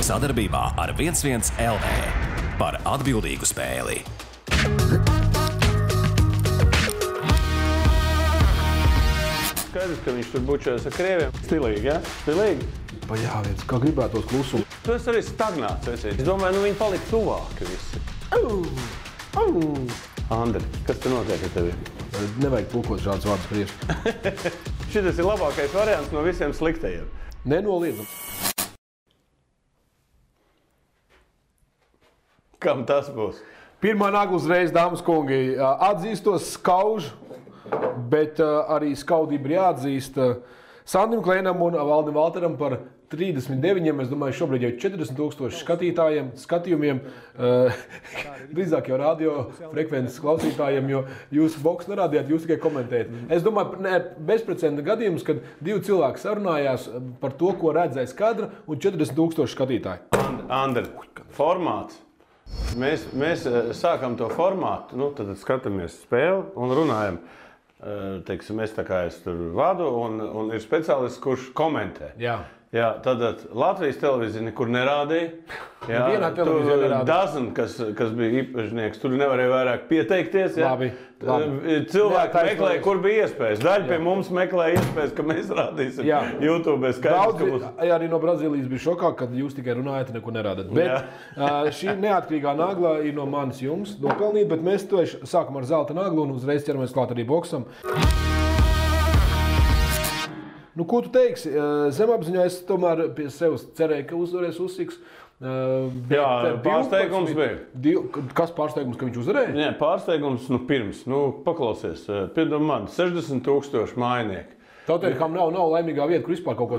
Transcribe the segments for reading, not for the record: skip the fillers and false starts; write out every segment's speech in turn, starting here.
Sadarbībā ar 11 LV par atbildīgu spēli. Skaidrs, ka viņš tur bučojas ar krieviem. Stilīgi, ja? Stilīgi? Pajāviens, kā gribētos klusumu. Tu esi arī stagnāts, esi. Es domāju, viņi palika tuvāki visi. Andri, kas te notiek ar tevi? Nevajag tulkot šādus vārdus krieviski. Šitas ir labākais variants no visiem sliktajiem. Nenoliedzams. Kam tas būs? Pirmā nagla uzreiz, dāmas kungi, atzīstos skaužu, bet arī skaudību ir jāatzīst Sandim Klēnam un Valdim Valteram par 39, es domāju, šobrīd jau 40,000 skatījumiem, drīzāk jau radio frekvences klausītājiem, jo jūs boks nerādījāt, jūs tikai komentējat. Es domāju, bezprecedenta gadījums, kad divi cilvēki sarunājās par to, ko redzēs kadra, un 40,000 skatītāji. Andri, formāts. Mēs sākam to formātu, tad skatāmies spēli un runājam. Teiksim, es tur vadu un ir speciālists, kurš komentē. Jā, tad Latvijas televīzija nekur nerādīja. Jā, tur Dazn, kas bija īpašnieks, tur nevarēja vairāk pieteikties. Jā. Labi. Cilvēki meklēja, kur bija iespējas. Daļa pie mums meklēja iespējas, ka mēs rādīsim YouTube. Daudzi arī no Brazīlijas bija šokā, kad jūs tikai runājat un neko nerādat. Bet šī neatkarīgā nagla ir no manis jums nopelnīta, bet mēs to sākam ar zelta naglu un uzreiz ķeramies klāt arī boksam. Ko tu teiksi? Zemapziņā es tomēr pie sevis cerēju, ka uzvarēs Usiks. Jā, pārsteigums bija. Kas pārsteigums, ka viņš uzvarēja? Nē, pārsteigums pirms. Paklausies, piedod man, 60,000 mājnieki. Tautēļ, nav laimīgā vieta, kur vispār kaut ko...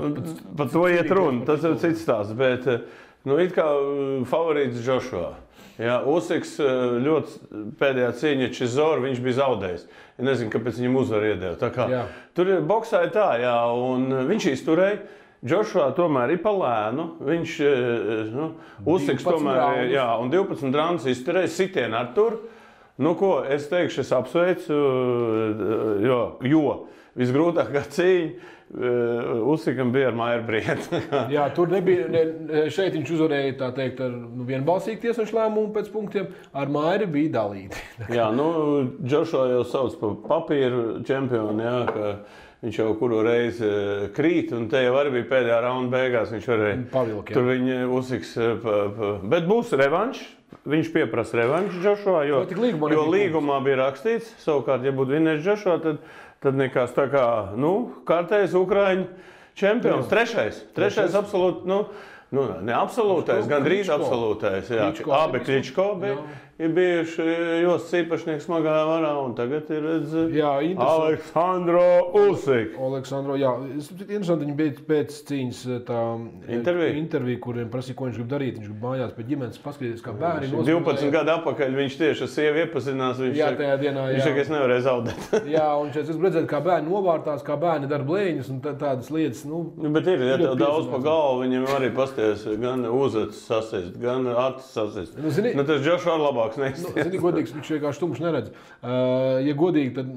Par to iet runa, tas ir cits stāsts, bet it kā favorīts Joshua. Jā, Usiks ļoti pēdējā cīņa Čizoru, viņš bija zaudējis. Es nezinu, kāpēc viņam uzvaru iedeva. Tur boksā ir tā, jā, un viņš izturēja. Joshua tomēr ir pa lēnu. Viņš, Usiks tomēr, jā, un 12 raundus izturēja, sitienu ar tur. Es teikšu, es apsveicu, jo visgrūtākā cīņa Usikam bija ar Mairu Brietu. Jā, tur nebija, šeit viņš uzvarēja, tā teikt, ar vienbalsīgu tiesnešu lēmumu pēc punktiem, ar Mairu bija dalīti. Jā, Joshua jau sauc par papīru čempionu, jā, ka viņš jau kuru reizi krīt, un te jau arī bija pēdējā raunda beigās, viņš varēja pavilkt. Tur viņa Usiks, bet būs revanš. Viņš pieprasa revanšu Joshua, jo līgumā bija rakstīts, savukārt, ja būtu vinējis Joshua, tad nekas tā kā, kārtējs Ukraiņu čempions, trešais absolūti, ne absolūtais, gandrīz absolūtais, jā, abi Kličko ir bijuši Jostas īpašnieks smagajā varā, un tagad ir Aleksandro Usik. Aleksandro, jā, interesanti, viņi bija pēc cīņas tā intervija, kuriem prasīja, ko viņš grib darīt. Viņš grib mājās pie ģimenes paskatīties, kā bērni. 12 gadu atpakaļ viņš tieši ar sievu iepazinās, viņš saka, es nevarēju zaudēt. Jā, un šeit es redzēju, kā bērni novārtās, kā bērni dara blēņas un tādas lietas. Bet ir, ja tev daudz pa galvu, viņiem arī pasties gan uzacis sasist, gan acis sasist. Tas Joshua labāk. Zini, godīgs, viņš vienkārši tumšs neredz. Ja godīgi, tad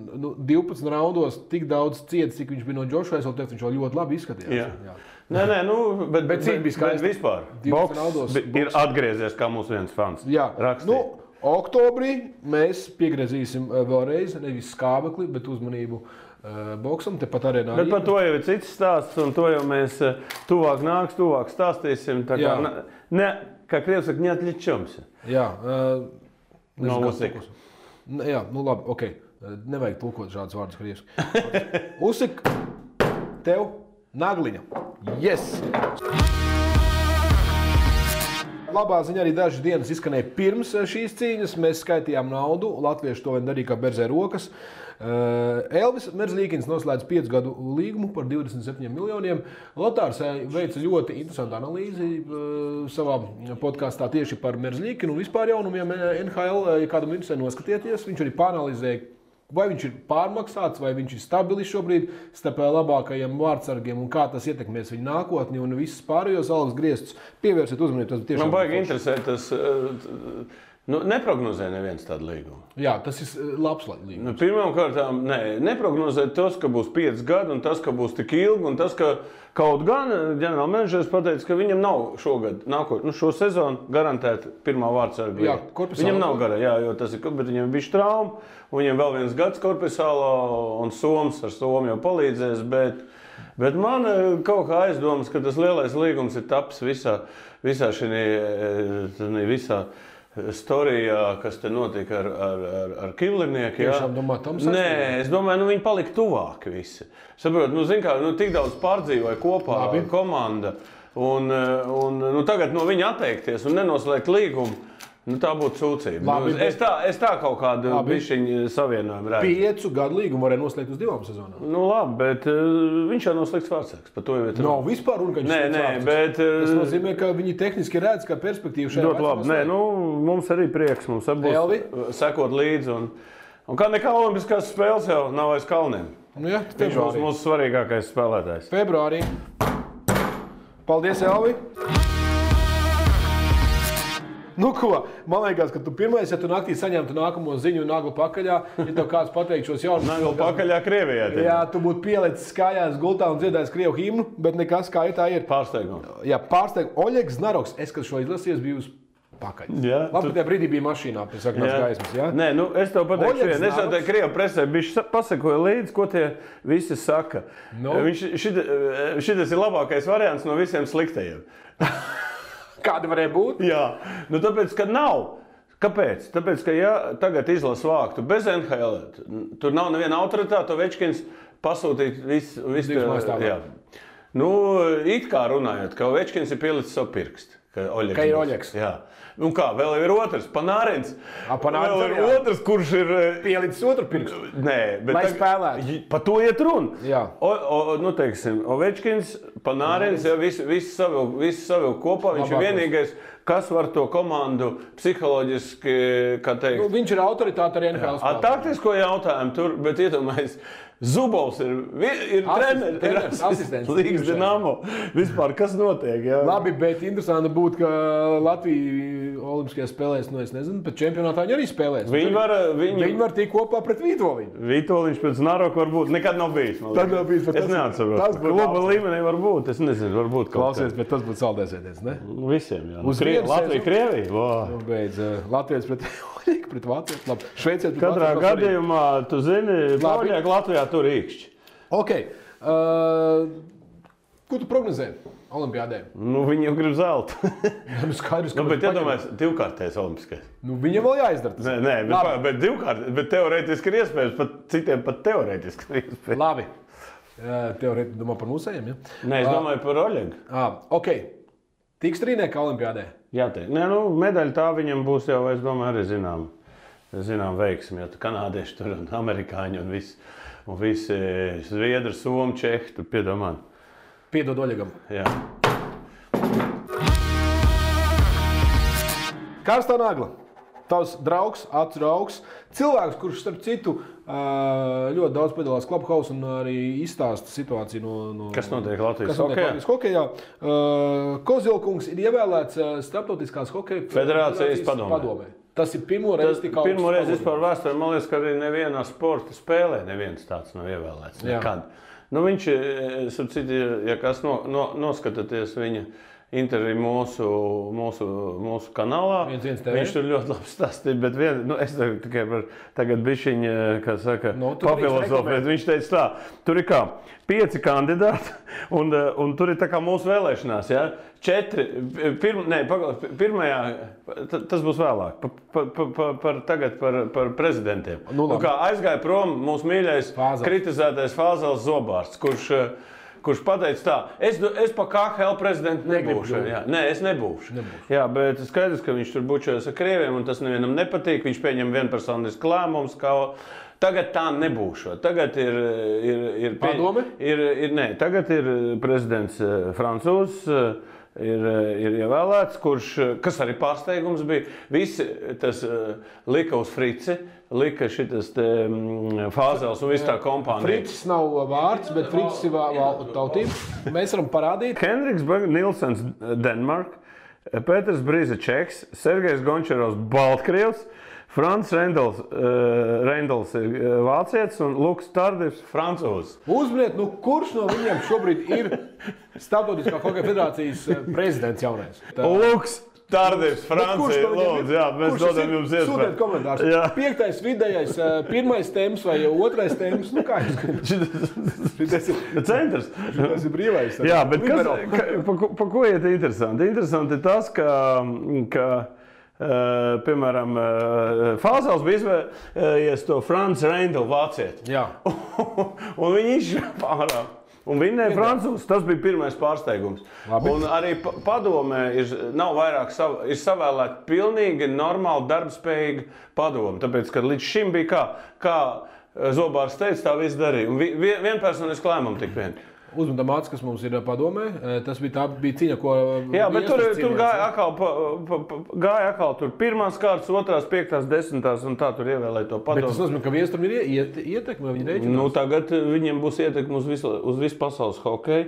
12 raundos tik daudz ciets, cik viņš bija no Joshua, es vēl teiktu, viņš vēl ļoti labi izskatījās. Jā. Nē, bet cik bija skaisti. Vispār. Boks ir atgriezies, kā mūsu viens fans rakstīja. Oktobrī mēs piegriezīsim vēlreiz, nevis skābekli, bet uzmanību boksam, tepat arēnā. Bet par to jau ir cits stāsts, un to jau mēs tuvāk stāstīsim. Tā kā, kā krievs saka, neatļečamsi. Jā. No Usika. Jā, labi, ok. Nevajag tulkot šādus vārdus krieviski. Usik, tev nagliņa. Yes! Labā ziņa arī dažas dienas izskanēja pirms šīs cīņas. Mēs skaitījām naudu. Latvieši to vien darīja kā berzē rokas. Elvis Merzlīkins noslēdz 5 gadu līgumu par 27 miljoniem. Lotārs veica ļoti interesantu analīzi savā podkastā tieši par Merzlīkinu un vispār jaunumiem NHL. Ja kādam interesē noskatieties, viņš arī pāranalizēja, vai viņš ir pārmaksāts, vai viņš ir stabilis šobrīd starp labākajiem vārdsargiem un kā tas ietekmēs viņa nākotni un visas pārējos algas griestus. Pievērsiet uzmanību. Man baigi interesē tas Nu, neprognozē neviens tādu līgumu. Jā, tas ir labs līgums. Nu, pirmkārt, neprognozē tas, ka būs 5 gadi, un tas, ka būs tik ilgi, un tas, ka kaut gan ģenerālmenedžers pateica, ka viņam nav šogad, šo sezonu garantēta pirmā vārdsarga. Jā, viņam nav gara, jo tas ir, bet viņam bija trauma, un viņam vēl viens gads Korpisālā, un Soms ar Somu jau palīdzēs, bet man kaut kā aizdomas, ka tas lielais līgums ir taps visā storijā, kas te notika ar Kivlinieku. Tiešām domā, tam saistībā? Nē, es domāju, viņi palika tuvāki visi. Saprot, tik daudz pārdzīvoja kopā komanda, un tagad no viņa atteikties un nenoslēgt līgumu, tā būtu sūdzība. Es tā kaut kādu bišķiņu savienojumu redzu. 5 gadu līgumu varēja noslēgt uz 2 sezonām. Labi, bet viņš jau noslēgts vārdsargs. Nav vispār runa, ka viņš bet tas nozīmē, ka viņi tehniski redz, ka perspektīva šajā ļoti labi. Mums arī prieks, mums būs sekot līdzi. Un kā nekā olimpiskās spēles jau nav aiz kalniem. Viņš būs mūsu svarīgākais spēlētājs. Februārī. Paldies, Elvi! Nu ko, man liekas, ka tu pirmais, ja tu naktī saņemtu nākamo ziņu nagla pakaļā, ja tev kāds pateikt šos jaunus... Nagla pakaļā Krievijā. Jā, tu būtu pielicis kājās gultā un dziedājis Krievu himnu, bet nekas kā tā ir. Pārsteigums. Jā, pārsteigums. Oļegs Znaroks, es, kad šo izlasījos, biju uz pakaļ. Labi, tajā brīdī bija mašīnā pie sarkanās gaismas, jā? Nē, es tev pateikšu, es jau tajā Krievu presē pasakoju līdzi, ko tie visi saka. Šitas ir labākais variants no visiem sliktajiem. Kāda varēja būt? Jā, tāpēc, ka nav. Kāpēc? Tāpēc, ka ja tagad izlasu vāktu bez NHL, tur nav neviena autoritāte, Ovečkins pasūtīt visu. Jā. It kā runājot, ka Ovečkins ir pielicis savu pirkstu. Ka ir Oļegs. Jā. Un kā, vēl ir otrs, Panārins. Vēl ir otrs, kurš ir... Pielicis otru pirkstu. Nē, bet... Lai spēlētu. Pa to iet runa. Jā. Teiksim, Ovečkins, Panārins, visu savilk kopā. Viņš ir vienīgais, kas var to komandu psiholoģiski, kā teikt... Viņš ir autoritāte arī NHL spēlē. Taktisko jautājumu tur, bet iedomājies, Zubovs ir treneris, asistents. Līgas Dinamo. Vispār, kas notiek? Jā? Labi, bet interesanti būtu, ka Latvija olimpiskajās spēlēs, es nezinu, bet čempionātā viņi arī spēlēs. Viņi var tikt kopā pret Vītoliņu. Vītoliņš pret Znaroku varbūt nekad nav bijis. Tad nav bijis. Es neatceros. Kluba līmenī var būt, es nezinu, varbūt kaut klausies, bet tas būtu saldēsēties, ne? Visiem, jā. Latvija, Krievija. Beidz, Latvijas pret Oļeku, pret Vācijas. Labi, Šveicē pret Katrā gadījumā, tu zini, Oļeku Latvijā tur īkšķi. Ok. Ko tu prognozē olimpiādē? Viņi jau grib zeltu. Skaidrs, ka bet iedomājies, 2-kārtais olimpiskais. Viņam vēl jāizdara tas. Nē, bet 2-kārt, bet teorētiski ir iespējams, citiem pat teorētiski ir iespējams. Labi. Teorētiski domā par mūsējiem, ja? Nē, es domāju par Oļegu. Ok. Tiks trīnieka olimpiādē? Jā, medaļa tā viņam būs jau, es domāju, arī zinām veiksmi, jo kanādieši tur un amerikāņi un visi zviedri, somi, čehi, tur piedomā. Piedod Oļegam. Jā. Karstā nagla. Tavs draugs, acu draugs, cilvēks, kurš starp citu ļoti daudz piedalās Clubhouse un arī izstāsta situāciju no kas notiek Latvijas hokejā. Kozilkungs ir ievēlēts Starptautiskās hokeja federācijas padomē. Tas ir pirmo reizi tik augsts. Pirmo reizi vispār vēsturē, man liekas, ka arī nevienā sporta spēlē neviens tāds nav ievēlēts. Nekad. Viņš, ja kas noskatāties viņa interviju mūsu kanālā. Viņš tur ļoti labi stāstīja, bet es tikai tagad bišķiņ, kā saka, papilosofēt. Viņš teica tā, tur ir kā 5 kandidāti, un tur ir tā kā mūsu vēlēšanās, ja? 4, pirmajā, tas būs vēlāk, tagad par prezidentiem. Kā aizgāja prom mūsu mīļais kritizētais Fāzels Zobārsts, kurš pateica tā, es pa KHL prezidentu nebūšu. Nē, es nebūšu. Jā, bet skaidrs, ka viņš tur bučojas ar krieviem, un tas nevienam nepatīk. Viņš pieņem vienpersonisku lēmumus, ka tagad tā nebūšu. Tagad ir padome? Nē, tagad ir prezidents francūzs, ir ievēlēts, kas arī pārsteigums bija. Visi tas lika uz Frici, lika šitas Fāzels un viss tā kompānija. Fricis nav vārds, bet Fricis ir tautība. Mēs varam parādīt. Henriks Nilsens, Denmark, Pēters Brīze Čeks, Sergejs Gončarovs Baltkrievs, Frants Reindls ir vācietis un Luks Tardivs francūzs. Uzminiet, kurš no viņiem šobrīd ir Starptautiskā hokeja federācijas prezidents jaunais? Luks Tardivs, Francija, lūdzu, jā, mēs dodam jums iespēju. Sūtiet komentārus. 5. vidējais, 1. temps vai 2. temps, kā jūs gribat? Šitas ir centrs. Tas ir brīvais. Jā, bet pa ko iet interesanti? Interesanti ir tas, ka piemēram, Fāzels bija izvēlējies to Frants Reindl vācieti. Jā. Un viņi izšķirā ārā. Un vinnēja francūzs. Tas bija pirmais pārsteigums. Labi. Un arī padomē nav vairāk ir savēlēta pilnīgi normāli darbspējīga padome. Tāpēc, ka līdz šim bija kā Zobārs teica, tā viss darīja. Un vienpersoniski lēmumu tik vien. Uzmanība māca, kas mums ir padomē. Tas bija cīņa, ko... Jā, bet tur gāja atkal tur 1. kārtas, 2., 5., 10. un tā tur ievēlēja to padomu. Bet tas nozīmē, ka Viestram ir ietekme, vai viņi rēķinās? Nu, tagad viņiem būs ietekme uz visu pasaules hokeju.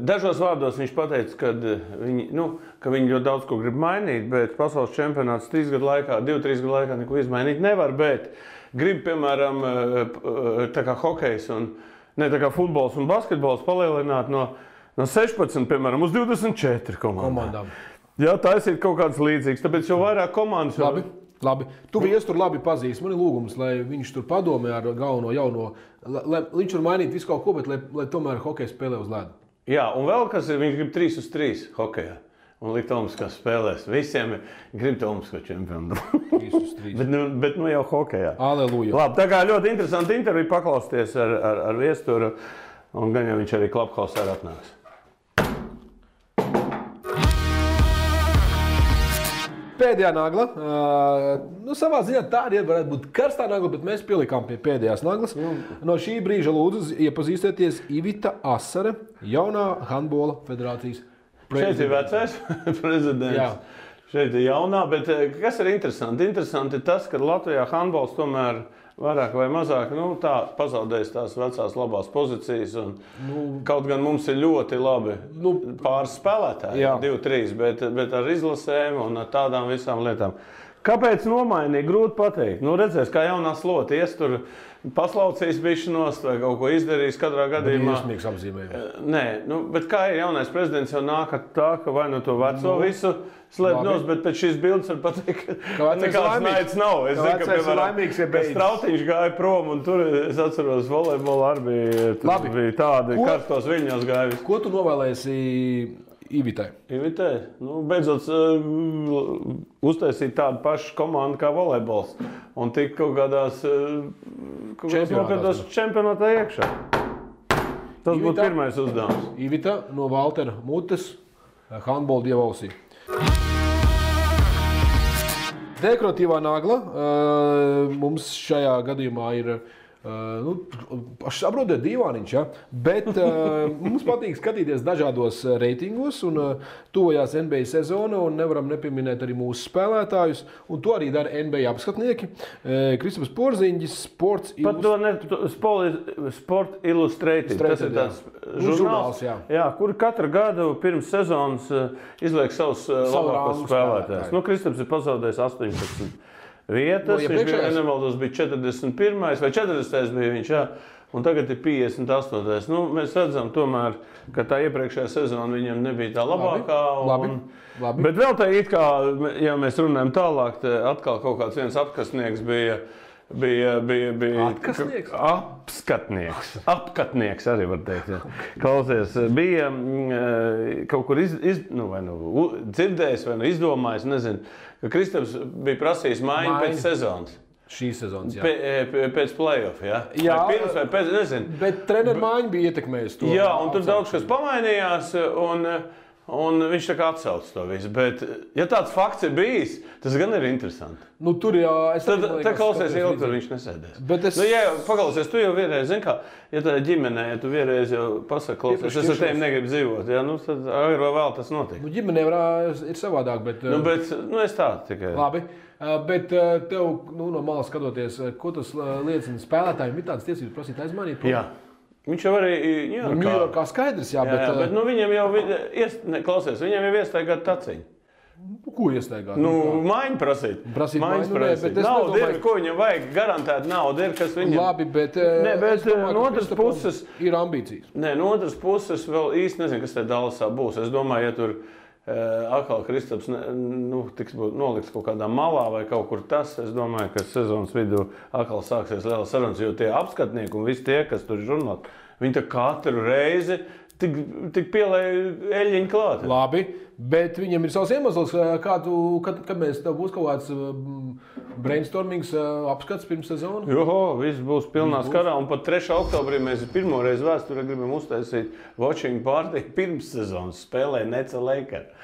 Dažos vārdos viņš pateica, ka viņi ļoti daudz ko grib mainīt, bet pasaules čempionāts 2-3 gadu laikā neko izmainīt nevar, bet grib, piemēram, tā kā hokejs un tā kā futbols un basketbols palielināt no 16, piemēram, uz 24 komandām. Jā, tas ir kaut kāds līdzīgs, tāpēc jau vairāk komandas. Labi. Tu Viesturu labi pazīsti. Man ir lūgums, lai viņš tur padomē ar galveno jauno, lai viņš var mainīt visu kaut ko, bet lai tomēr hokeja spēlē uz ledu. Jā, un vēl kas ir, viņš grib 3-3 hokejā. Un likt Tomskās spēlēs. Visiem grib Tomsko čempionu. 3-3. bet jau hokejā. Aleluja. Labi, tā kā ļoti interesanti interviju paklausties ar Viesturu. Un gan jau viņš arī Klubhausā atnāks. Pēdējā nagla. Savā ziņā tā arī varētu būt karstā nagla, bet mēs pielikām pie pēdējās naglas. No šī brīža lūdzu iepazīstieties Ivita Asare, jaunā handbola federācijas. Šeit ir vecais prezidents. Jā. Šeit ir jaunā, bet kas ir interesanti? Interesanti ir tas, ka Latvijā handbols tomēr vairāk vai mazāk pazaudējis tās vecās labās pozīcijas. Kaut gan mums ir ļoti labi pāris spēlētāji, 2-3, bet ar izlasēm un ar tādām visām lietām. Kāpēc nomainīja? Grūti pateikt. Redzēs, kā jaunā slota ies tur paslaucīs bišķinos vai kaut ko izdarījis katrā gadījumā. Iesmīgs apzīmējums. Nē, bet kā ir jaunais prezidents jau nāk ar tā, ka vai to veco visu slēp nos, bet pēc šīs bildes var pateikt, ka nekāds naids nav. Es zinu, ka, piemēram, Strautiņš gāja prom un tur, es atceros, volejbola arī bija tādi karstos viļņos gājuši. Ko tu novēlēsi Ivitai? Ivitai? Beidzot uztaisīt tādu pašu komandu kā volejbols un tik kaut kādās čempionātā iekšā. Tas būtu pirmais uzdevums. Ivita no Valtera mutes, handbola dievausī. Dekoratīvā nagla mums šajā gadījumā ir saprotiet, dīvāniņš, ja? Bet mums patīk skatīties dažādos reitingos un tuvojās NBA sezona un nevaram nepieminēt arī mūsu spēlētājus. Un to arī dara NBA apskatnieki. Kristaps Porziņģis, Sport Illustrated. Tas ir tāds žurnāls, kur katru gadu pirms sezonas izliek savus labākos spēlētājus. Kristaps ir pazaudējis 18. vietas, viņš bija nemaldos, bija 41. vai 40. bija viņš, un tagad ir 58. Mēs redzam tomēr, ka tā iepriekšējā sezona viņam nebija tā labākā. Labi. Bet vēl tā it kā, ja mēs runājam tālāk, atkal kaut kāds viens apkastnieks bija apskatnieks arī var teikt. Jā. Klausies, bija kaut kur dzirdējis vai izdomājis, nezinu, ka Kristaps bija prasījis maiņu pēc sezonas. Šīs sezonas, jā. Pēc play-off, jā? Jā, vai pirms vai pēc, nezinu. Bet treneru maiņa bija ietekmējusi to. Jā, un tur daudz kas pamainījās, un viņš tā kā atsauc to visu. Bet, ja tāds fakts ir bijis, tas gan ir interesanti. Tur jā, Tad klausies ilgi, tur viņš nesēdēs. Paklausies, tu jau vienreiz, zini kā, ja tā ģimenē, ja tu vienreiz jau pasaki, klausies, es ar tevi negribu dzīvot, jā, tad agri vai vēl tas notiek. Ģimenē ir savādāk, bet... es tā tikai... Labi, bet tev, no malas skatoties, ko tas liecina spēlētājiem, ir tādas tiesības prasīt aizmainīt? Jā. Viņš jau arī Ņujorkā skaidrs, jā, bet... bet viņam jau, klausies, viņam jau iestaigāt taciņu. Ko iestaigāt? Maiņu prasīt. Maiņu prasīt. Nauda ir, ko viņam vajag, garantēt nauda ir, kas viņam... Labi, bet... no otras puses... Ir ambīcijas. No otras puses vēl īsti nezinu, kas te Dallasā būs. Es domāju, ja tur atkal Kristaps tiks nolikts kaut kādā malā vai kaut kur tas, es domāju, ka sezonas vidū atkal sāksies liela sarunas, jo tie apskatnieki un visi tie, kas tur ir žurnāli, viņi tā katru reizi tik pielēja eļļiņu klāt. Labi, bet viņam ir savs iemesls, kad mēs tev būs kaut kāds brainstormings apskats pirms sezonu? Viss būs pilnā skarā, un pat 3. oktobrī mēs pirmo reizi vēsturē gribam uztaisīt watching party pirms sezonas spēlē Neca Lakers.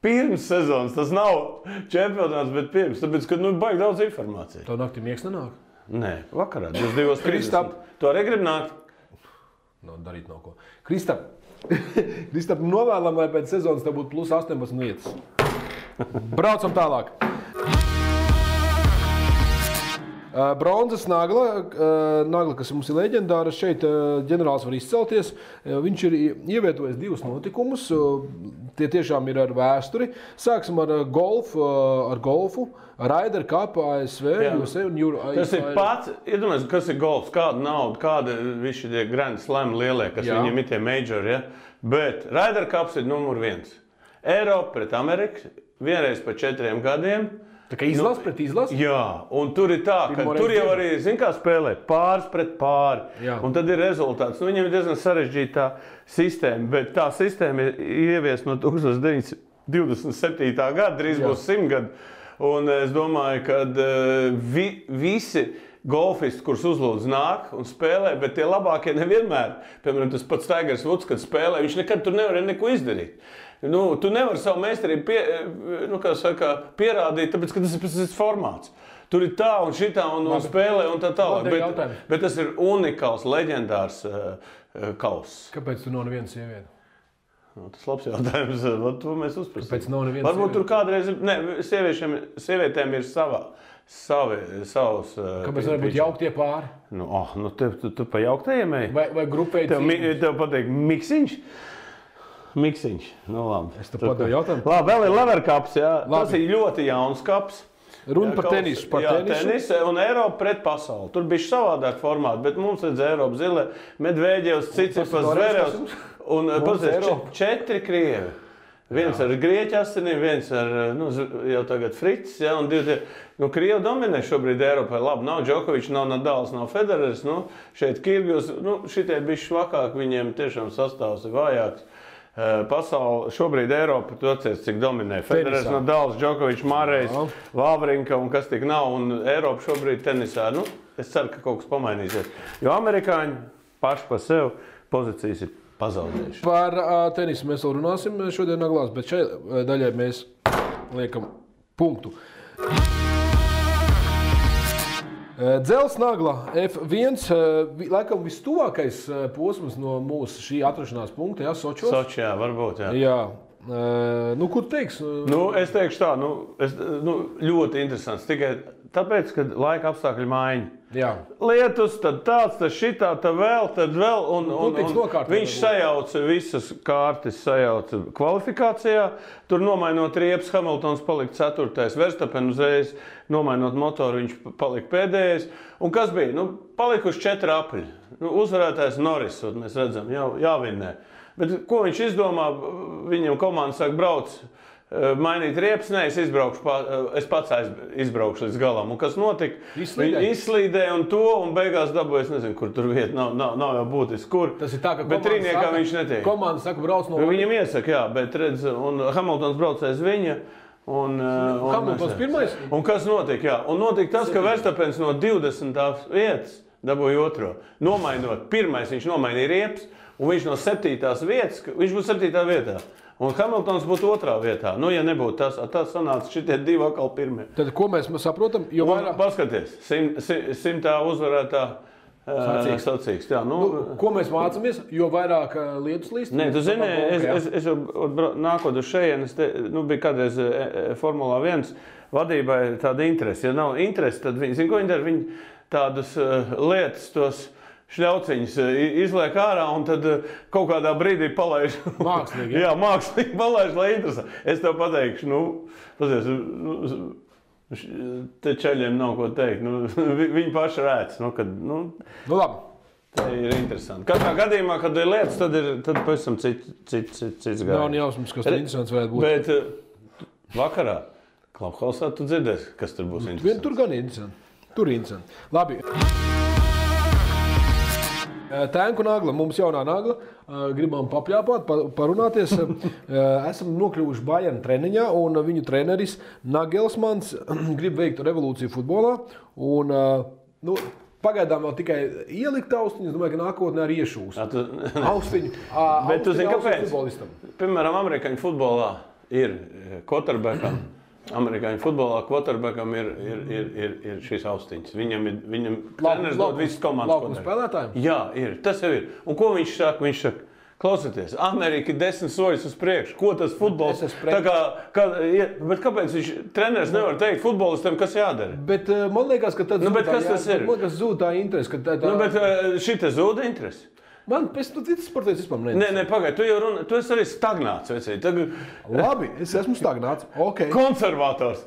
Pirms sezonas, tas nav čempionāts, bet pirms, tāpēc, ka baigi daudz informācijas. Tev naktī miegs nenāk? Nē, vakarā, 22:30. Tu arī grib nākt? Darīt nav ko. Kristap, novēlam, lai pēc sezonas tev būtu plus 18 vietas. Braucam tālāk. Bronzas nagla, kas mums ir leģendāra, šeit ģenerālis var izcelties. Viņš ir ievietojis 2 notikumus, tie tiešām ir ar vēsturi. Sāksim ar golfu, Ryder Cup, ASV, USA un Euro. Tas ir pats, iedomājies, kas ir golfs, kāda nauda, kāda visi tie Grand Slam lielie, kas viņiem ir tie majori, Bet Ryder Cups ir numur 1. Eiropa pret Ameriku, vienreiz pa 4 gadiem. Tā kā izlas pret izlasi? Jā, un tur ir tā, ka tur jau arī, kā spēlē, pāris pret pāri. Jā. Un tad ir rezultāts. Viņam ir diezgan sarežģīta tā sistēma, bet tā sistēma ir ieviesta no 1927. gada, drīz būs 100 gadu. Un es domāju, ka visi golfisti, kurus uzlūdz nāk un spēlē, bet tie labākie nevienmēr. Piemēram, tas pats Tigers Woods, kad spēlē, viņš nekad tur nevarēja neko izdarīt. Tu nevari savu meistarību pierādīt, tāpēc, ka tas ir pēc formāts. Tur ir tā un šitā un spēlē un tā tālāk. Bet tas ir unikāls, leģendārs kauss. Kāpēc tu nav nevienas sievietes? Tas labs jautājums, to mēs uzprasām. Kāpēc nav nevienas varbūt tur kādreiz, sievietēm ir savs... Kāpēc var būt jauktie pāri? Tu pa jauktajiem ej? Vai grupēji cīņas? Tev pateik miksiņš? Miksiņš, labi. Es tev padevu jautājumu. Labi, vēl ir Lever Cups, Tas ir ļoti jauns kaps. Runa par tenisu. Tenisu un Eiropa pret pasauli. Tur bija savādāk formāti, bet mums redz Eiropa zile, Medvēģevs, Cicipas, Zverevs un 4 krievi. Viens ar grieķu asinīm, viens ar jau tagad Frits, un 2. Krievi dominē šobrīd Eiropā. Labi, nav Džokovičs, nav Nadals, nav Federers, šeit Kirgijos, šitie bišķi švakāk, viņiem tiešām sastāvs ir vājāks. Pasauli šobrīd Eiropa, tu atcies, cik dominē. Federers, Nadals, Džokovičs, Mārejs, Vavrinka un kas tik nav, un Eiropa šobrīd tenisā. Es ceru, ka kaut kas pamainīsies. Jo amerikāņi paši pa sev pozīcijas ir pazaudējuši. Par tenisu mēs vēl runāsim šodien naglās, bet šai daļai mēs liekam punktu. Dzels nagla F1, laikam vistuvākais posms no mūsu šī atrašanās punkta, Sočos? Sočijā, varbūt, Jā. Ko tu teiksi? Es teikšu tā, ļoti interesants, tikai tāpēc, ka laika apstākļi maiņa. Jā. Lietus, tad tāds, tad šitā, tad vēl, un viņš sajauca visas kārtas, sajauca kvalifikācijā. Tur nomainot riepas, Hamiltons palika 4. Verstappen uzreiz, nomainot motoru, viņš palika pēdējais. Un kas bija? Palikuši 4 apļi. Uzvarētājs Norris, mēs redzam, jāvinnē. Bet ko viņš izdomā? Viņam komanda saka, brauc, mainīt riepas, es pats izbraukšu līdz galam. Un kas notika? Izslīdēja un beigās dabūja, es nezinu, kur tur vieta, nav jau būtiski, kur. Tas ir tā, ka bet trīniekā viņš netiek. Komanda saka, brauc no... Viņam iesaka, bet redz, un Hamiltons braucēs viņa. Hamiltons pirmais? Un kas notika? Un notika tas, ka Verstappens no 20. vietas dabūja 2. Nomainot, pirmais viņš nomainīja riepas, un viņš no 7. vietas, viņš būtu 7. vietā. Un Hamiltons būtu 2. vietā. Ja nebūtu tas sanāca šitie 2 atkal pirmie. Tad ko mēs saprotam? Paskaties, 100. uzvarētā sacīgs. Ko mēs mācāmies? Jo vairāk lietus līst? Nē, tu zini, es nākot uz šejienes, bija kādreiz Formulā 1 vadībai tāda interese. Ja nav interese, tad viņi, ko viņi dara? Viņi tādas lietas, tos šļauciņas izliek ārā un tad kaut kādā brīdī palaiž. Mākslīgi, jā, mākslīgi palaiž, lai interesē. Es tev pateikšu, te čaļiem nav ko teikt. Viņi paši rēc. Labi. Tā ir interesanti. Katrā gadījumā, kad ir lietas, tad pavisam cits gājums. Nav jausmas, kas tur interesants varētu būt. Bet vakarā Klubhausā tu dzirdēsi, kas tur būs interesants. Tur gan interesanti. Tur interesanti. Labi. Tēnku nagla, mums jaunā nagla, gribam papļāpāt, parunāties. Esam nokļuvuši Bayern treniņā un viņu treneris Nagelsmans grib veikt revolūciju futbolā. Un, pagaidām vēl tikai ielikt austiņus, domāju, ka nākotnē arī iešūs. Austiņu. Bet tu zini, kāpēc? Piemēram, amerikāņu futbolā ir quarterbackam. Amerikāņu futbolā quarterbackam ir šīs austiņas. Viņam treneris dod visas komandas. Laukuma spēlētājiem? Jā, ir. Tas jau ir. Un ko viņš saka? Viņš saka, klausieties, Amerika ir 10 soļus uz priekšu. Ko tas futbols? Bet kāpēc treneris nevar teikt futbolistam, kas jādara? Bet man liekas, ka tad zūd tā interese. Bet šita zūda interese. Man pēc tam citas sportietis vispār neinteresē. Nē, pagaid, tu esi arī stagnāts, vecīt. Labi, es esmu stagnāts, ok. Konservators.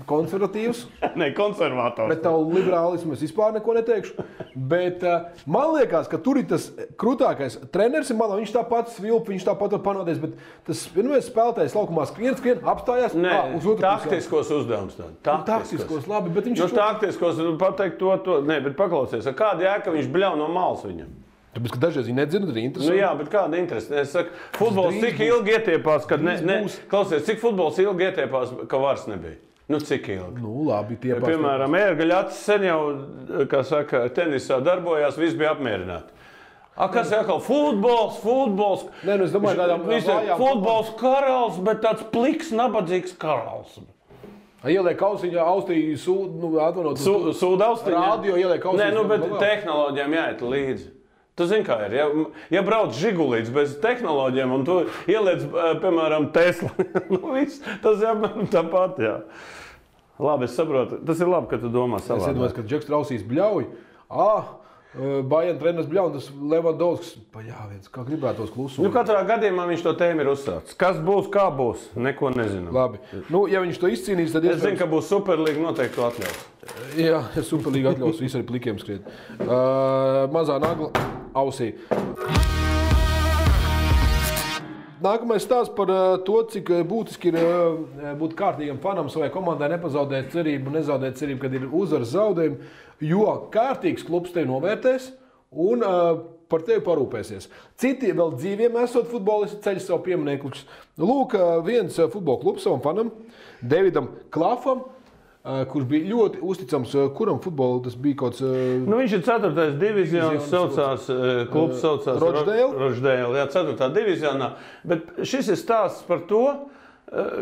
Konservatīvs. Nē, konservators. Bet tavu liberālismu es vispār neko neteikšu. Bet man liekas, ka tur ir tas krūtākais treneris, viņš tāpat svilp, viņš tāpat var panāties, bet tas vienmēr spēlētājs laukumā skrien, apstājās. Uz taktiskos uzdevums. Taktiskos, labi, bet viņš... Taktiskos pateikt to. Nē, bet paklausies, kāda jēga viņš bļauj no malas viņam? Tāpēc, ka dažreiz viņi nedzird, arī interesanti. Jā, bet kāda interese? Es saku, futbols cik ilgi ietiepās, kad klausies, cik futbols ilgi ietiepās, ka vairs nebija? Cik ilgi? Labi, tiepās. Piemēram, ērgaļacis sen jau, kā saka, tenisā darbojās, viss bija apmierināti. Kas ir atkal? Futbols. Nē, es domāju, kādām vājām. Futbols karals, bet tāds pliks, nabadzīgs karals. Ieliek austiņā, Sūda austiņā? Rādio ieliek austiņā. Nē, bet tehnoloģijām jāiet līdzi. Tu zini, kā ir. Ja brauc žigulīts bez tehnoloģiem un tu ieliec, piemēram, Tesla, tas ir tāpat, jā. Labi, es saprotu. Tas ir labi, ka tu domā savā. Es iedomājos, ka Džeks Trausīs bļauj. Bayern treneris bļauj, un tas Levandovskis. Kā gribētos klusumu. Katrā gadījumā viņš to tēmu ir uzsācis. Kas būs, kā būs, neko nezinām. Labi. Ja viņš to izcīnīs, tad es zinu, ka būs Superlīga, noteikti to atļaus. Jā, Superlīga atļaus visu arī plikiem skriet. Mazā nagla ausī. Nākamais stāsts par to, cik būtiski ir būt kārtīgam fanam savai komandai, nepazaudēt cerību, nezaudēt cerību, kad ir uzvaras zaudējumi, jo kārtīgs klubs tevi novērtēs un par tevi parūpēsies. Citi vēl dzīviem esot futbolisti ceļ savu pieminekļus. Lūk, viens futbola klubs savam fanam, Davidam Klafam, kurš bija ļoti uzticams, kuram futbolu tas bija kaut kāds... viņš ir 4. divizionas, klubs saucās Rochdale, jā, 4. divizionā, bet šis ir stāsts par to,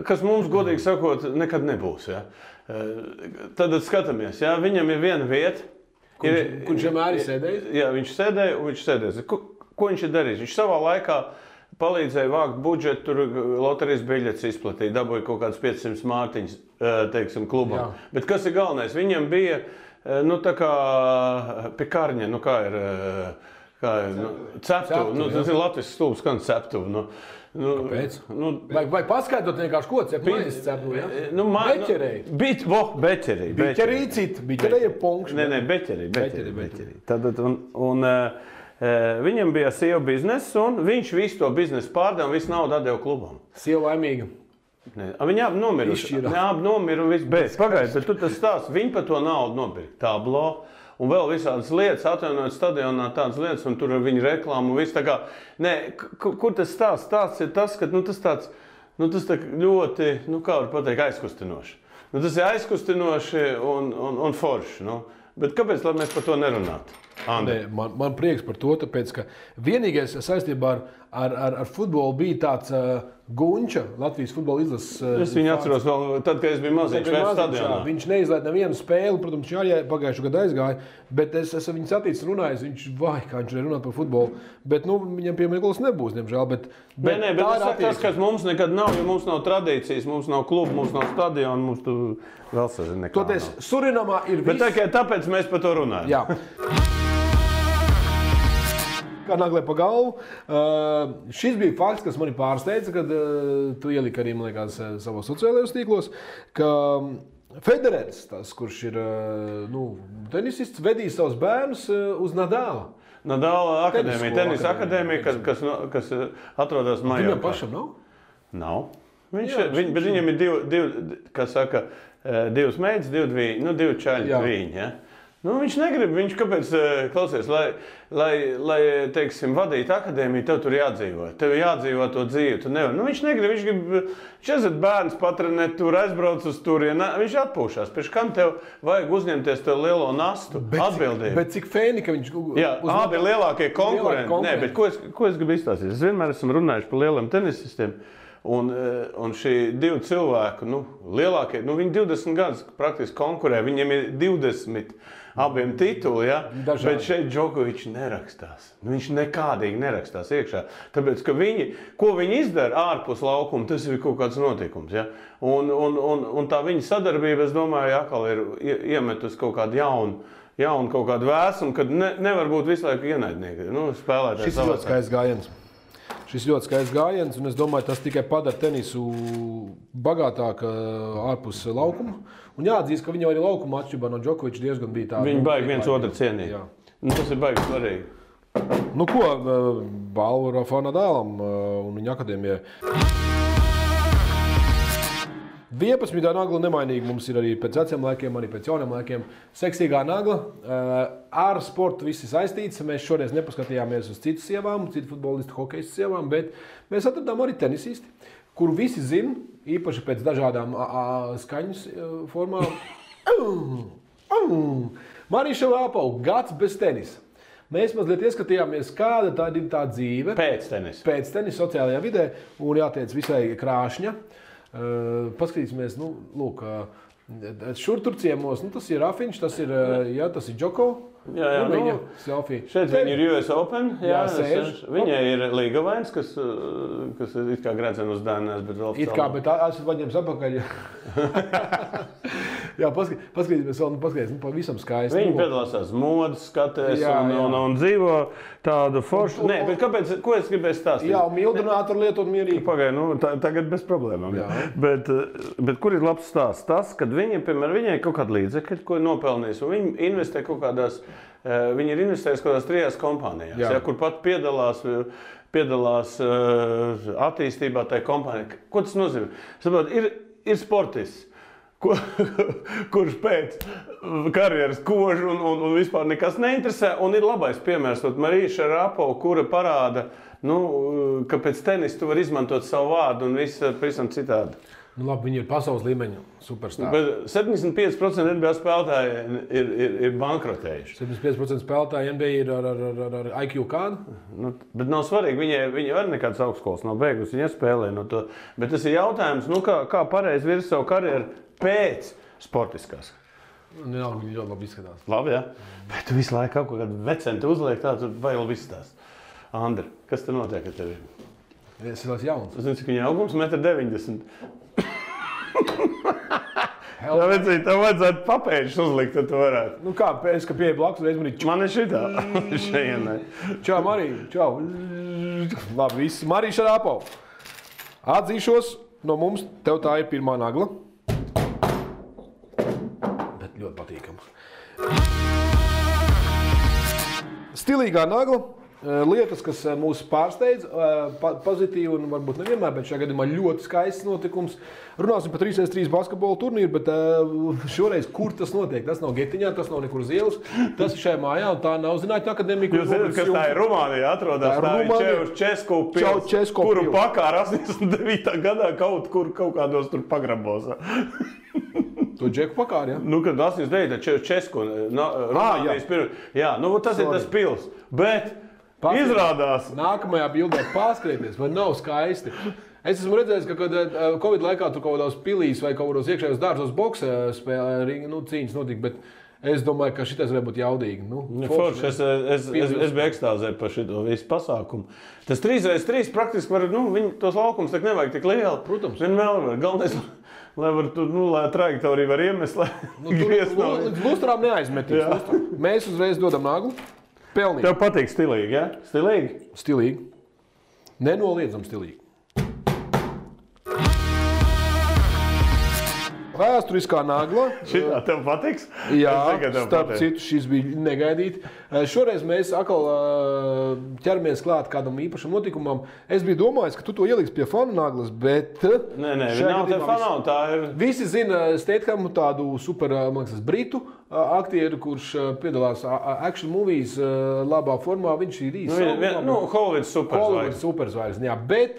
kas mums, godīgi sakot, nekad nebūs, jā. Tad skatāmies, jā, viņam ir viena vieta. Kurš vienmēr ir sēdējis? Jā, viņš sēdēja un viņš sēdēs. Ko viņš ir darījis? Viņš savā laikā palīdzēja vākt budžetu, tur loterijas biļetes izplatīja, dabūja kaut kāds 500 mārtiņas, teiksim, klubam. Jā. Bet kas ir galvenais? Viņam bija, tā kā pikarņa, kā ir ceptuve. Tas ir Latvijas stulbs, kā ceptuve. Kāpēc? Vai paskaidrot vienkārši ko ceptuve? Beķerēji. Beķerī cita. Beķerēji ir punkšs. Nē, beķerī. Viņam bija sieva biznesa, un viņš visu to biznesu pārdeva un visu naudu atdeva klubam. Sieva laimīga. Viņi abi nomiruši. Abi nomira un viss. Pagaid, bet tu tas stāsts, viņi par to naudu nopirka. Tablo un vēl visādas lietas, atjaunojot stadionā tādas lietas, un tur ar viņu reklāmu un viss tā kā. Nē, kur tas stāsts? Stāsts ir tas, ka tas tāds, tas tā ļoti, kā var pateikt, aizkustinoši. Tas ir aizkustinoši un forši. Bet kāpēc, lai mēs par to nerunātu? Man prieks par to, tāpēc, ka vienīgais saistībā ar futbolu bija tāds Gunča, Latvijas futbola izlases. Es viņu atceros vēl tad, kad es biju maziņš stadionā. Viņš neizlaida nevienu spēli, protams, viņš arī pagājušajā gadā aizgāja, bet es esmu viņu saticis runājis, kā viņš runāt par futbolu, bet viņam piemineklis nebūs, diemžēl. Bet tas, kas mums nekad nav, jo mums nav tradīcijas, mums nav klubu, mums nav stadiona, mums tu vēl sazini nekā. Toties, Surinamā ir viss. Bet tāpēc mēs par to runājam. Jā. kā naglē pa galvu. Šis bija fakts, kas mani pārsteidza, kad tu ieliki arī, man liekas, savos sociālajos tīklos, ka Federers, tas, kurš ir tenisists, vedīs savus bērnus uz Nadāla. Nadāla akadēmija, tenisa akadēmija, kas atrodas Majorkā. Viņam pašam nav? Nav. Bet viņam ir divas meitas, divi čaļi, viņi. Ja? Viņš negrib, viņš kāpēc, klausies, lai teiksim, vadītu akadēmiju, tev tur jādzīvo. Tev jādzīvo to dzīvi, tu nevar. Viņš negrib, viņš grib 40 bērns patrenēt, tur aizbrauc uz turieni, viņš atpūšās. Pēc kam tev vajag uzņemties tev lielo nastu, atbildību? Bet cik fēni, ka viņš... Jā, abi lielākie konkurenti. Nē, bet ko es gribu izstāstīt? Es vienmēr esmu runājuši par lieliem tenisistiem. Un šī divi cilvēki, lielākie, viņi 20 gadus praktiski konkurē, viņiem ir 20 abiem tituli, ja? Bet šeit Džokovičs nerakstās. Viņš nekādīgi nerakstās iekšā. Tāpēc, ka ko viņi izdara ārpus laukuma, tas ir kaut kāds notikums. Ja? Un tā viņa sadarbība, es domāju, atkal ir iemetus kaut kādu jaunu kaut kādu vēsumu, kad nevar būt visu laiku ienaidnieki. Spēlētājs šis ļoti skaists gājiens. Šis ļoti skaists gājiens, un es domāju, tas tikai padara tenisu bagātāk ārpus laukuma. Un jāatzīst, ka viņi arī laukuma atšķirībā no Džokoviča diezgan bija tādi. Viņi baigi viens otru cienīt. Tas ir baigi svarīgi. Balvu Rafa Nadālam un viņa akadēmijai. 11. nagla nemainīgi mums ir arī pēc veciem laikiem, arī pēc jauniem laikiem. Seksīgā nagla. Ar sportu visi saistīts. Mēs šoreiz nepaskatījāmies uz citu sievām, citu futbolistu, hokejistu sievām, bet mēs atradām arī tenisisti, kuru visi zina, īpaši pēc dažādām skaņas formām. Marija Šarapova, gads bez tenisa. Mēs mazliet ieskatījāmies, kāda tā ir tā dzīve. Pēc tenisa sociālajā vidē, un jāteic visai krāšņa. Paskatīsimies, šur tur ciemos, tas ir Rafiņš, tas ir Džoko. Viņa selfija. Šeit viņi ir US Open, viņai ir Līgavains, kas it kā gredzena uz dēnēs, bet vēl it kā, bet esmu paņēmis apakaļ. Jā, paskatīsimies vēl, pavisam skaisti. Viņi piedalās tās modas skatēs un dzīvo tādu foršu. Nē, bet kāpēc, ko es gribēju stāstīt? Jā, mildrinātoru lietot mierīgi. Pagaid, tagad bez problēmām. Bet kur ir labs stāsts? Tas, kad viņai kaut kāda līdzekļa, ko ir nopelnījis, un viņi investē kaut kādās, viņi ir investējis kaut kādās 3 kompānijās, kur pat piedalās attīstībā tajā kompānijā. Ko tas nozīmē? Saprot, ir sportists, kurš pēc karjeras kož un vispār nekas neinteresē, un ir labais piemērs, Marija Šarapova, kura parāda, ka pēc tenisa tu var izmantot savu vārdu un viss pavisam citādi. Viņi ir pasaules līmeņa superstāri. Bet 75% NBA spēlētāji ir bankrotējuši. 75% spēlētāji NBA ir ar IQ kādu? Bet nav svarīgi, viņi var nekādas augstskolas nav beigusi, viņi spēlē no to. Bet tas ir jautājums, kā pareizi virs savu karjeru pēc sportiskās. Viņi ļoti labi izskatās. Labi, jā. Bet tu visu laiku kaut kādu vecentu uzliek, tā tur vai vēl viss tās. Andri, kas te notiek ar tevi? Es esmu jauns. Es nezinu, cik viņa augums 1,90 m. Tev vajadzētu papēžus uzlikt, tad tu varētu. Es, ka pieeja blakus, reiz man ir Man ir šitā. Šeienai. Čau, Marija. Čau. Labi, viss. Marija Šarapova. Atzīšos, no mums tev tā ir pirmā nagla. Bet ļoti patīkama. Stilīgā nagla. Lietas, kas mūs pārsteidz, pozitīvi un varbūt nevienmēr, bet šajā gadījumā ļoti skaists notikums. Runāsim par 3x3 basketbola turnīru, bet šoreiz, kur tas notiek? Tas nav Getiņā, tas nav nekur uz ielas, tas ir šajā mājā, un tā nav Zinātņu akadēmija. Jūs zināt, kas tā ir Rumānijā atrodas, tā ir Česku pils, kuru pakāra 89. gadā kaut kādos tur pagrabos. To Džeku pakāri, ja? Kad 89. Česku, Rumānijas pirms. Jā, tas ir tas pils, bet izrādās. Nākamajā bildē pārskrieties, vai nav skaisti. Es esmu redzējis, ka kad Covid laikā tur kaut kādās pilīs vai kaut kādos iekšējos dārzos boksa spēlē, cīņas notika, bet es domāju, ka šitais varētu būt jaudīgi. Forši, es biju ekstāzē par šito visu pasākumu. Tas 3x3 praktiski var, tos laukums tak nevajag tik lieli. Protams. Vienmēr var. Galvenais, lai var tur, lai trajektoriju var iemest, lai līdz lustrām neaizmetīs. Mēs uzreiz dodam naglu. Pelnīt. Tev patīk stilīgi, ja? Stilīgi? Stilīgi. Nenoliedzam stilīgi. Vēsturiskā nagla. Šitā tev patiks? Jā, Es zinu, ka tev starp patīk. citu, šis bija negaidīti. Šoreiz mēs atkal ķeramies klāt kādam īpašam notikumam. Es biju domājis, ka tu to ieliksi pie fanu naglas, bet... Nē, šajā nav te gadījumā fanau, tā ir... Visi zina Stathamu, tādu super, man liekas, britu aktieru, kurš piedalās action movies labā formā. Viņš ir īsi. Hollywoods superzvaigznes. Superzvaigznes, jā. Bet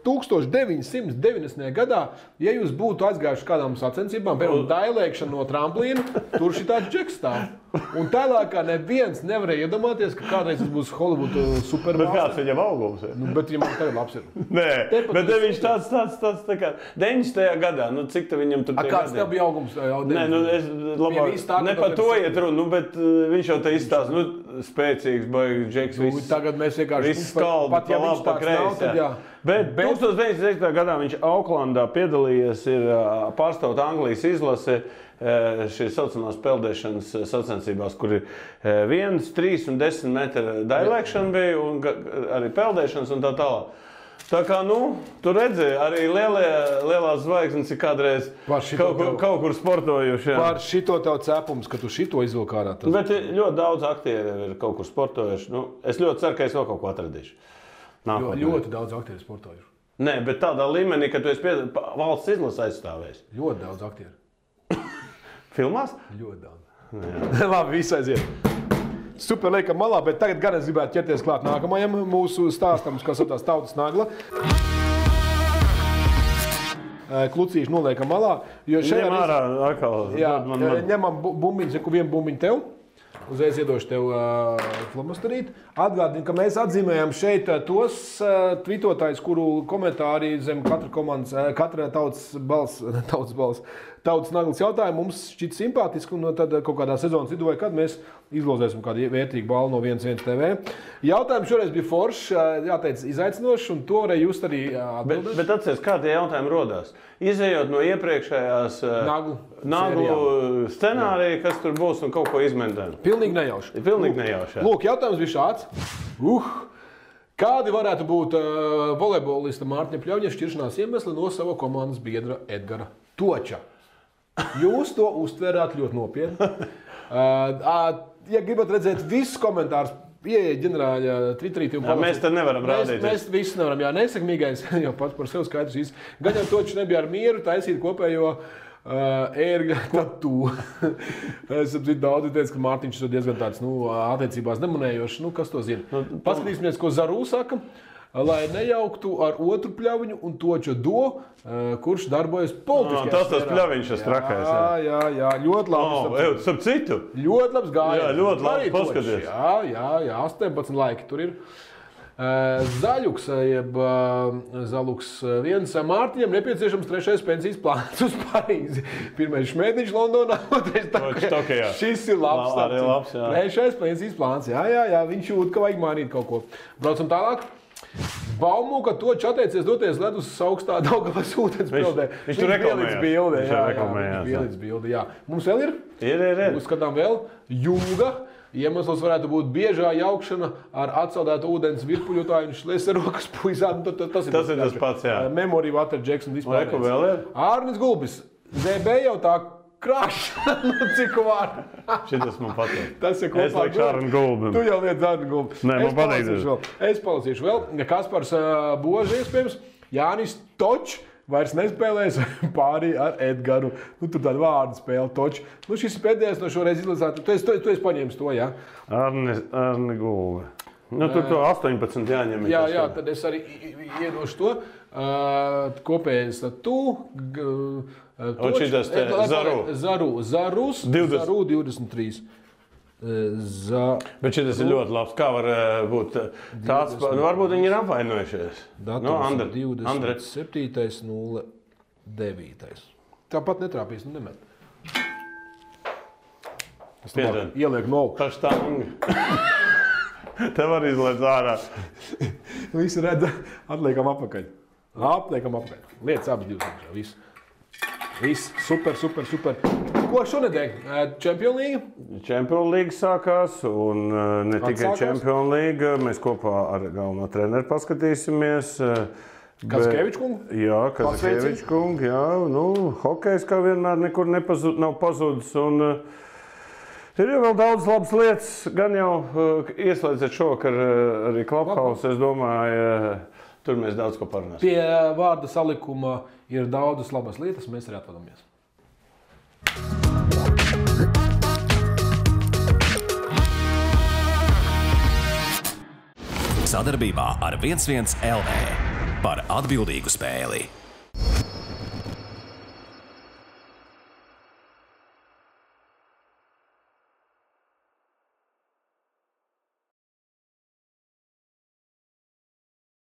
1990. gadā, ja jūs būtu aizgājuši kādām sacensībām, piemēram, dailēkšana no tramplīna, tur šī tāds džeks stāv. Un tālākā neviens nevarēja iedomāties, ka kādreiz tas būs Hollywood Bet supermārs. kāds viņam augums ir? Nu, bet viņam tagad labs ir. Nē, Tepat bet tas- viņš tāds tā kā 90. gadā, nu cik te viņam tur tie Kāds gadi? tev bija augums? Nē, nu es labāk, viss tā, ka ne tev par to ir- iet runa, nu, bet viņš jau te izstāsta, nu, spēcīgs, baigs, džeks, Nu, viss. tagad mēs vienkārši Viss skaldi, pat ja pa viņš labi, pa tāds nav, kreisi, tad jā. jā. Bet 1990. gadā viņš Auklandā piedalījies, ir pārstāvot Anglijas izlase šīs saucamās peldēšanas sacensībās, kur ir 1, 3 un 10 metru dailēkšana bija un arī peldēšanas un tā tālāk. Tā kā, nu, tu redzēji, arī lielās zvaigznes ir kādreiz Par šito kaut kur sportojuši. Jā. Par šito tev cepums, ka tu šito izvilk ārā. Tas... Bet ļoti daudz aktieru ir kaut kur sportojuši. Nu, es ļoti ceru, ka es vēl kaut ko atradīšu. Ļoti daudz aktieru sportojuši. Nē, bet tādā līmenī, ka tu esi valsts izlases aizstāvējis. Ļoti daudz aktieru. Filmās? Ļoti daudz. Labi, viss aiziet. Super, liekam malā, bet tagad gan es gribētu ķerties klāt nākamajam mūsu stāstam, kas ir tās tautas nagla. Klucīši noliekam malā. Jo šajā Ņem ārā atkal. Jā, Dod man. ņemam bumbiņu, saku vienu bumbiņu tev. Uzreiz iedošu tev flomastarīt. Atgādinu, ka mēs atzīmējam šeit tos tvitotājus, kuru komentāri zem katra tautas naglas jautājumu mums šķiet simpātiski, un tad kaut kādā sezonas vidū vai kad mēs izlozēsim kādu vērtīgu balvu no 1 TV. Jautājums šoreiz bija foršs, jāteic, izaicinošs, un to varēja just arī atbildēt. Bet atceries, kā tie jautājumi rodās? Izejot no iepriekšējās naglu scenārija, kas tur būs un kaut ko izmēģināt. Pilnīgi nejauši. Pilnīgi nejauši. Lūk, jautājums bija šāds. Kādi varētu būt volejbolista Mārtiņa Pļauņa šķiršanās iemesli no sava komandas biedra Edgara Toča? Jūs to uztvērāt ļoti nopietni. Ja gribat redzēt visus komentārus, ieiet ģenerāļa Twitterī. Mēs te nevaram rādīt. Mēs visi nevaram. Jā, nesakmīgais jau pats par sevi skaidrs. Gan jau Točs nebija ar mieru taisīt kopējo ērgļa tatu. Es saprotu, daudzi teica, ka Mārtiņš ir diezgan tāds, attiecībās nemanējošs. Kas to zina? Paskatīsimies, ko Zarū saka. Lai nejauktu ar otru Pļaviņu un Toča Do, kurš darbojas politiskajā Tas Pļaviņš ir trakais. Jā, ļoti labi. Starp citu. Ļoti labs gājiens. Jā, ļoti labi, paskaties. Jā, 18 laiki tur ir. Zaļuks, jeb Zaluks viens. Mārtiņam nepieciešams 3. pensijas plāns uz Parīzi. 1. Šmētiņš Londonā, 2. Tokijā. Šis ir labs. Arī labs, jā. 3. pensijas plāns. Jā, viņš jūt, ka vajag mainīt kaut ko. Braucam tālāk. Baumu, ka Točs atteicies doties ledus augstā Daugavas ūdens peldē. Viņš tur reklamējās. Viņš bildi, jā. Mums vēl ir? Ir. Uzskatām vēl. Jūga. Iemesls varētu būt biežā jaukšana ar atsaldētu ūdens virpuļotāju un šleserokas puizām. Tas ir tas pats, jā. Memory, Water, Jackson, vispār. Ko vēl ir? Ārnis Gulbis. ZB jau tā krāšana, cik vārdu. Šitas man patīk. Tas ir kopā. Es laiku Ārni Gulbim. Tu jau liec Ārni Gulbim. Nē, man patīk. Es palasīšu vēl. Kaspars Boži, iespējams. Jānis Točs vairs nespēlēs pārī ar Edgaru. Tur tāda vārdu spēle Točs. Šis ir pēdējais no šoreiz izlasāt. Tu esi paņēmis to, jā? Ārni Gulbi. Tur to 18 jāņem. Jā, tad es arī iedošu to. Kopējais tu. Un šitas te Zarus 23. Bet šitas ir ļoti labs. Kā var būt tāds? Varbūt viņi ir apvainojušies. Datums 27.09. Tāpat netrāpīs, nemet. Es ielieku no augšu. Paštangi. Te var izlēt ārā. Visi redz, atliekam apakaļ. Liec abas divas. Viss. Super. Ko šonedēļ? Champions League? Champions League sākās, un ne tikai Champions League. Mēs kopā ar galveno treneru paskatīsimies. Kazakēvičs kungu? Jā, Kazakēvičs kungu. Jā, hokejs kā vienmēr nekur nav pazudis. Un ir jau vēl daudz labas lietas. Gan jau ieslēdzot šovakar arī Clubhouse, es domāju, tur mēs daudz ko parunāsim. Pie vārda salikuma ir daudzas labas lietas, mēs arī atvadamies. Sadarbībā ar 11 LV par atbildīgu spēli.